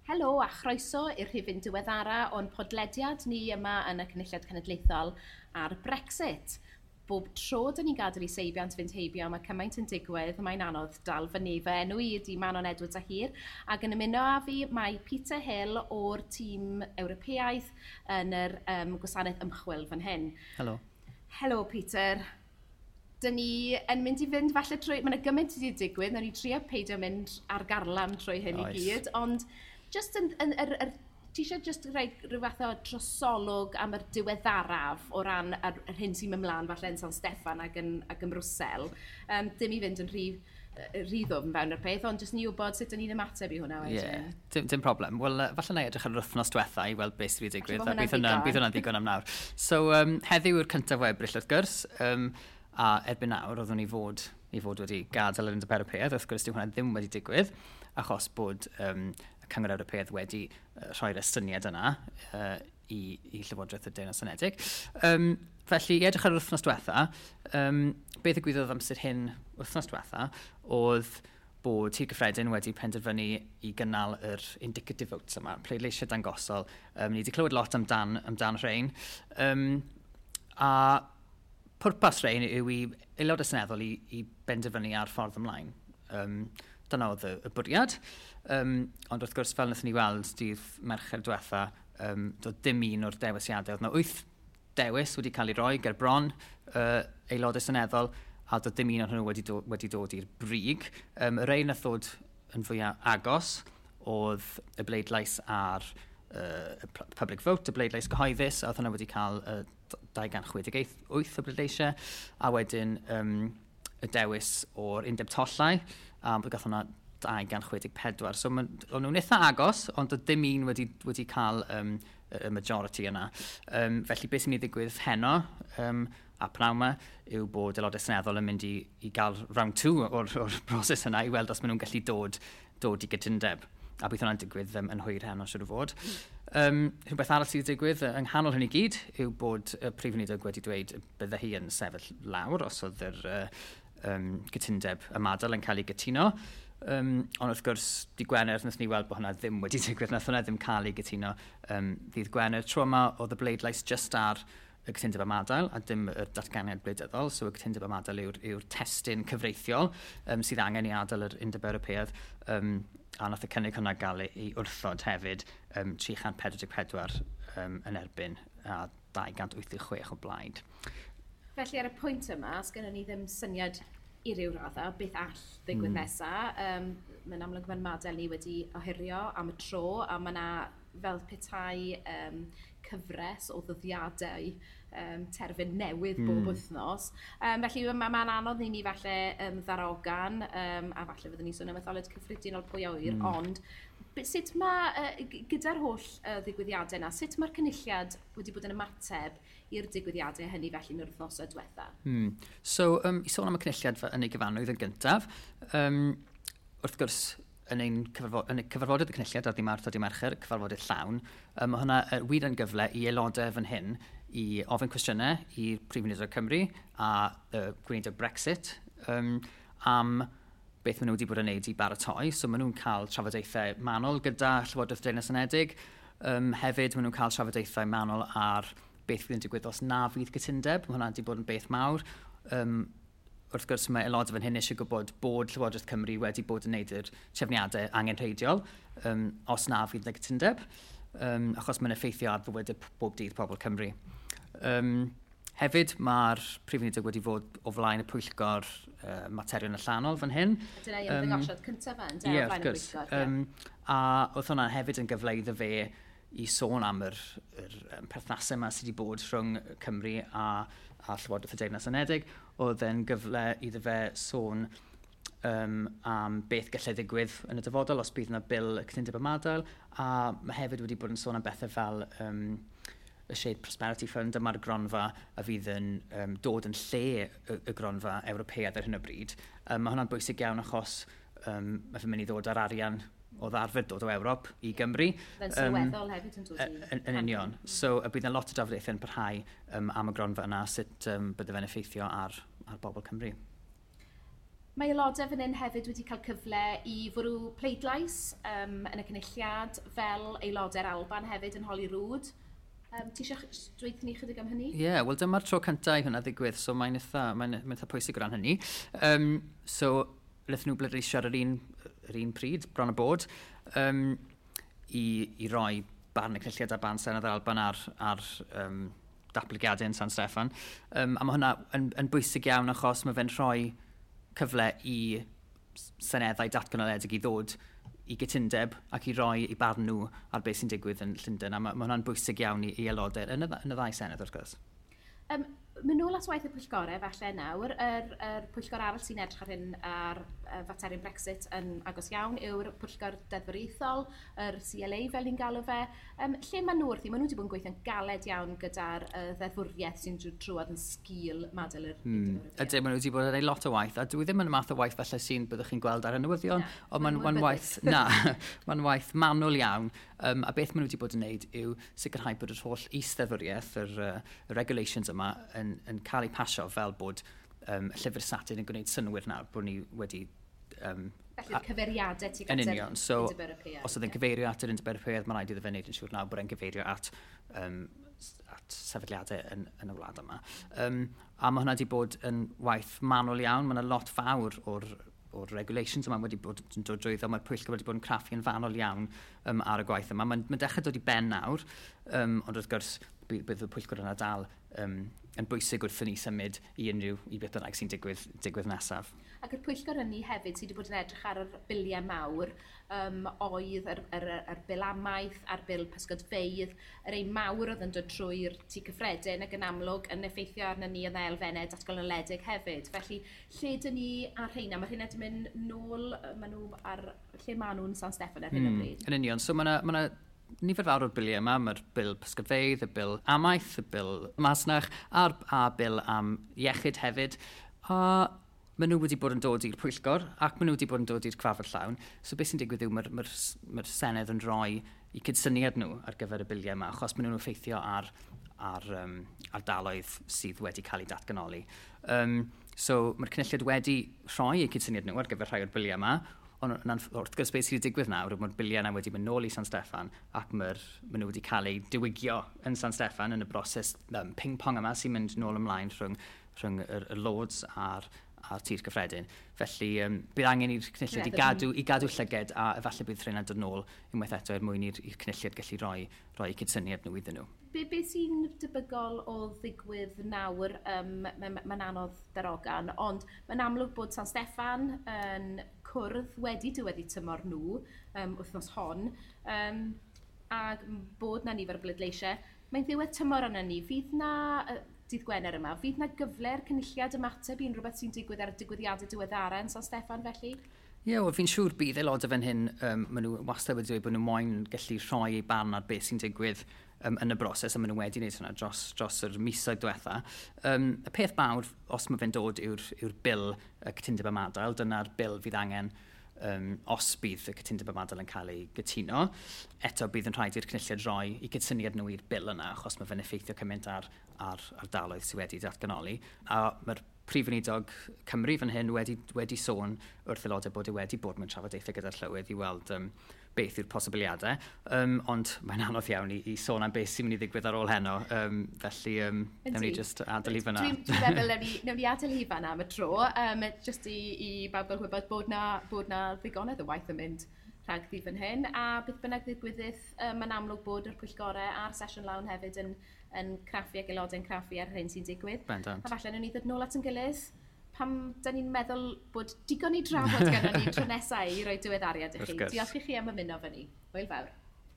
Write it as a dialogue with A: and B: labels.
A: Helo a chroeso i'r rhifyn diweddara o'n podlediad ni yma yn y Cynulliad Cenedlaethol ar Brexit. Bob tro dyn ni'n gadael i seibiant fynd heibio, mae cymaint yn digwydd, mae'n anodd dal fyny. Fy enw i ydy Manon Edwards a Hir, ac yn ymuno â fi mae Peter Hill o'r tîm Ewropeaidd yn yr gwasanaeth ymchwil fan hyn.
B: Helo.
A: Helo Peter. Dyn ni yn mynd i fynd falle trwy... Mae yna gymaint wedi digwydd, nawn ni trio peidio mynd ar garlam trwy hyn i gyd, ond just yn, yn, yr, yr, ti eisiau just rhoi rhyw fath o drosolwg am yr diweddaraf o ran yr hyn sy'n mynd mlaen falle yn San Steffan ac yn Brwsel? Dim i fynd yn rhy ddwfn fewn yr peth, ond jyst ni wybod sut dyn ni'n ymateb i hwnna wedyn.
B: Yeah, dim problem. Wel, falle na i edrych ar yr wythnos diwetha i weld beth sydd wedi digwydd. A bydd hwnna'n ddigon am nawr. So, heddiw yw'r 1 o Ebrill wrth gwrs, a erbyn nawr oeddwn i fod wedi gadael yr Undeb Ewropeaidd. Wrth gwrs, dyw hwnna ddim wedi digwydd, achos bod y Cyngor Ewropeaidd wedi rhoi'r estyniad yna i Llywodraeth y Deyrnas Unedig. Felly, i edrych ar yr wythnos diwetha, beth ddigwyddodd amser hyn wythnos diwetha oedd bod Tŷ'r Cyffredin wedi penderfynu i gynnal yr indicative votes yma, pleidleisiau dangosol. Ni wedi clywed lot amdan rhain. A pwrpas rhain yw i aelodau seneddol i benderfynu ar ffordd ymlaen. Dyna oedd y bwriad. Ond wrth gwrs, fel wnaethon ni weld dydd Mercher diwetha, doedd dim un o'r dewisiadau. Oedd yna wyth dewis wedi cael ei roi ger bron aelodau seneddol, a doedd dim un ohonyn nhw wedi dod i'r brig. Y rhai nath ddod yn fwyaf agos oedd y bleidlais ar y public vote, y bleidlais gyhoeddus, a oedd hwnna wedi cael 268 o bleidleisiau, a wedyn y dewis o'r undeb tollau, a gath hwnna 264. So o'n nhw'n eitha agos, ond doedd dim un wedi cael y majority yna. Felly beth sy'n mynd i ddigwydd heno a pnawn yma yw bod aelodau seneddol yn mynd i gael round two o'r broses yna i weld os maen nhw'n gallu dod i gytundeb. A bydd hwnna'n digwydd yn hwyr heno, siwr o fod. Rhywbeth arall sydd wedi digwydd yng nghanol hyn i gyd yw bod y Prif Weinidog wedi dweud bydde hi yn sefyll lawr os oedd yr cytundeb ymadael yn cael ei gytuno. Ond wrth gwrs, dydd Gwener, wnaethon ni weld bod hwnna ddim wedi digwydd, nath hwnna ddim cael ei gytuno ddydd Gwener. Tro yma oedd y bleidlais just ar y cytundeb ymadael a dim y datganiad gwleidyddol. So y cytundeb ymadael yw'r testun cyfreithiol sydd angen i adael yr Undeb Ewropeaidd. A nath y cynnig hwnna gael ei wrthod hefyd, 344 yn erbyn a 286 o blaid.
A: Felly ar y pwynt yma, os gennym ni ddim syniad i ryw raddau beth all ddigwydd nesa. Mae'n amlwg mae'n ymadael ni wedi ohirio am y tro, a mae yna fel petai cyfres o ddyddiadau terfyn newydd bob wythnos. Felly mae'n ma anodd i ni falle ddarogan, a falle fyddwn ni sôn am etholiad cyffredinol, pwy a ŵyr, ond sut mae, gyda'r holl ddigwyddiadau yna, sut mae'r Cynulliad wedi bod yn ymateb i'r digwyddiadau hynny felly yn yr wythnosau diwetha?
B: So, i sôn am y Cynulliad yn ei gyfanrwydd yn gyntaf, wrth gwrs, yn y cyfarfodydd y Cynulliad ar ddydd Mawrth a dydd Mercher, cyfarfodydd llawn, mae hwnna wir yn gyfle i aelodau fan hyn i ofyn cwestiynau i'r Prif Weinidog Cymru a Gweinidog Brexit am beth maen nhw wedi bod yn neud i baratoi. So maen nhw'n cael trafodaethau manwl gyda Llywodraeth Deyrnas Unedig. Hefyd, maen nhw'n cael trafodaethau manwl ar beth fydd yn digwydd os na fydd cytundeb. Mae hwnna wedi bod yn beth mawr. Wrth gwrs, mae aelodau fan hyn eisiau gwybod bod Llywodraeth Cymru wedi bod yn neud yr trefniadau angenrheidiol os na fydd y cytundeb, achos mae'n effeithio ar fywydau bob dydd pobl Cymru. Hefyd, mae'r Prif Weinidog wedi fod o flaen y pwyllgor materion allanol fan hyn.
A: Dyna ei ymddangosiad cyntaf fe, ynde,
B: Ie,
A: o flaen
B: wrth
A: y
B: gwrs.
A: pwyllgor. Ie.
B: A oedd hwnna hefyd yn gyfle iddo fe i sôn am yr perthnasau yma sydd wedi bod rhwng Cymru a Llywodraeth y Deyrnas Unedig. Oedd e'n gyfle iddo fe sôn am beth gallai ddigwydd yn y dyfodol os bydd yna bil y cytundeb ymadael. A mae hefyd wedi bod yn sôn am bethau fel y Shared Prosperity Fund, dyma'r gronfa a fydd yn dod yn lle y gronfa Ewropeaidd ar hyn o bryd. Mae hwnna'n bwysig iawn achos mae fe'n mynd i ddod ar arian oedd arfer dod o Ewrop i Gymru.
A: Fe'n sylweddol hefyd yn dod i
B: Yn union. So, y bydd yna lot o drafodaethau yn parhau am y gronfa yna, sut bydde fe'n effeithio ar bobl Cymru.
A: Mae aelodau fan hyn hefyd wedi cael cyfle i fwrw pleidlais yn y Cynulliad fel aelodau'r Alban hefyd yn Holyrood. Ti eisiau dweud ni chydig am hynny?
B: Ie, yeah, wel dyma'r tro cyntaf i hwnna ddigwydd, so mae'n eitha pwysig o ran hynny. So, wnaethon nhw bleidleisio ar yr un pryd, bron a bod, i roi barn y Cynulliad a barn Senedd yr Alban ar datblygiadau yn San Steffan. A mae hwnna yn bwysig iawn achos mae fe'n rhoi cyfle i seneddau datganoledig i ddod i gytundeb ac i roi i barn nhw ar beth sy'n digwydd yn Llundain. A mae hwnna'n bwysig iawn i aelodau yn y ddau senedd, wrth gwrs.
A: Mynd nôl at waith y pwyllgorau falle nawr, yr pwyllgor arall sy'n edrych ar hyn ar faterion Brexit yn agos iawn yw'r pwyllgor deddfwriaethol, yr CLA fel ni'n galw fe. Lle maen nhw wrthi? Maen nhw wedi bod yn gweithio'n galed iawn gyda'r ddeddfwriaeth sy'n trwad yn sgil madael yr Undeb Ewropeaidd.
B: Ydyn, maen nhw wedi bod yn ei lot o waith, a dwi ddim yn y math o waith falle sy'n byddwch chi'n gweld ar y newyddion, ond mae'n waith, na, mae'n waith manwl iawn. A beth maen nhw wedi bod yn wneud yw sicrhau bod yr holl is-ddeddfwriaeth, yr regulations yma, yn cael ei pasio fel bod y llyfr statud yn gwneud synnwyr nawr bod ni wedi...
A: Felly'r cyfeiriadau tuag at yr
B: Undeb Ewropeaidd. Os oedd yn cyfeirio at yr Undeb Ewropeaidd, mae'n rhaid iddo fe wneud yn siŵr nawr bod e'n cyfeirio at sefydliadau yn y wlad yma. A mae hwnna wedi bod yn waith manwl iawn. Mae yna lot fawr o'r regulations yma wedi bod yn dod drwyddo. Mae'r pwyllgor wedi bod yn craffu yn fanol iawn ar y gwaith yma. Mae'n dechrau dod i ben nawr, ond wrth gwrs bydd y pwyllgor yna dal yn bwysig wrth i ni symud i unrhyw i beth bynnag sy'n digwydd nesaf.
A: Ac yr pwyllgor hynny hefyd sydd wedi bod yn edrych ar yr biliau mawr, oedd yr bil amaeth a'r bil pysgodfeydd, yr ein mawr oedd yn dod trwy'r tŷ cyffredin ac yn amlwg yn effeithio arno ni yn elfennau datganoledig hefyd. Felly, lle dyn ni ar rheina? Mae rheina wedi mynd nôl, maen nhw ar, lle maen nhw'n San Steffan ar hyn o bryd?
B: Yn union, so mae yna nifer fawr o'r biliau yma, mae'r bil pysgodfeydd, y bil amaeth, y bil masnach, a'r bil am iechyd hefyd. A maen nhw wedi bod yn dod i'r pwyllgor ac maen nhw wedi bod yn dod i'r cyfarfod llawn. So beth sy'n digwydd yw mae'r Senedd yn rhoi eu cydsyniad nhw ar gyfer y biliau yma, achos maen nhw'n effeithio ar ardaloedd sydd wedi cael eu datganoli. So mae'r Cynulliad wedi rhoi eu cydsyniad nhw ar gyfer rhai o'r biliau yma, ond wrth gwrs beth sydd wedi digwydd nawr, mae'r biliau yna wedi mynd nôl i San Steffan ac maen nhw wedi cael eu diwygio yn San Steffan yn y broses ping-pong yma sy'n mynd nôl ymlaen rhwng y Lords a'r tir cyffredin. Felly bydd angen i'r Cynulliad i gadw llyged a efallai bydd rheina'n dod nôl unwaith eto er mwyn i'r Cynulliad gallu rhoi cydsyniad nhw iddyn nhw.
A: Be sy'n debygol o ddigwydd nawr, mae'n anodd darogan, ond mae'n amlwg bod San Steffan yn cwrdd wedi diweddu tymor nhw wythnos hon, a bod na nifer o bleidleisiau. Mae'n ddiwedd tymor arno ni. Fydd na, dydd Gwener yma, fydd na gyfle'r Cynulliad ymateb i unrhyw beth sy'n digwydd ar y digwyddiadau diweddara yn San Steffan felly?
B: Ie, yeah, wel fi'n siŵr bydd aelodau fan hyn, maen nhw wastad wedi dweud bod nhw moyn gallu rhoi eu barn ar beth sy'n digwydd yn y broses, a maen nhw wedi wneud hwnna dros yr misoedd diwetha. Y peth mawr, os mae fe'n dod, yw'r bil y cytundeb ymadael. Dyna'r bil fydd angen os bydd y cytundeb ymadael yn cael ei gytuno. Eto bydd yn rhaid i'r Cynulliad roi i gydsyniad nhw i'r bil yna, achos mae fe'n effeithio cymaint ar ardaloedd sydd wedi datganoli. A mae'r Prif Weinidog Cymru fan hyn wedi sôn wrth aelodau bod e wedi bod mewn trafodaethau gyda'r llywydd i weld beth yw'r posibiliadau, ond mae'n anodd iawn i sôn am beth sy'n mynd i ddigwydd ar ôl heno, felly newn ni just adael i fan'na.
A: Dwi'n meddwl newn ni adael i fan'na am y tro, just i bawb gael gwybod bod na ddigonedd o waith yn mynd rhagddi fan hyn, a beth bynnag ddigwyddith, mae'n amlwg bod yr pwyllgorau a'r sesiwn lawn hefyd yn craffu ac aelodau'n craffu ar hyn sy'n digwydd.
B: Bendant.
A: A falle newn ni ddod nôl at ein gilydd pam da ni'n meddwl bod digon i drafod gyda ni tro nesaf i roi diweddariad i chi. Diolch i chi am ymuno fy ni. Hwyl fawr.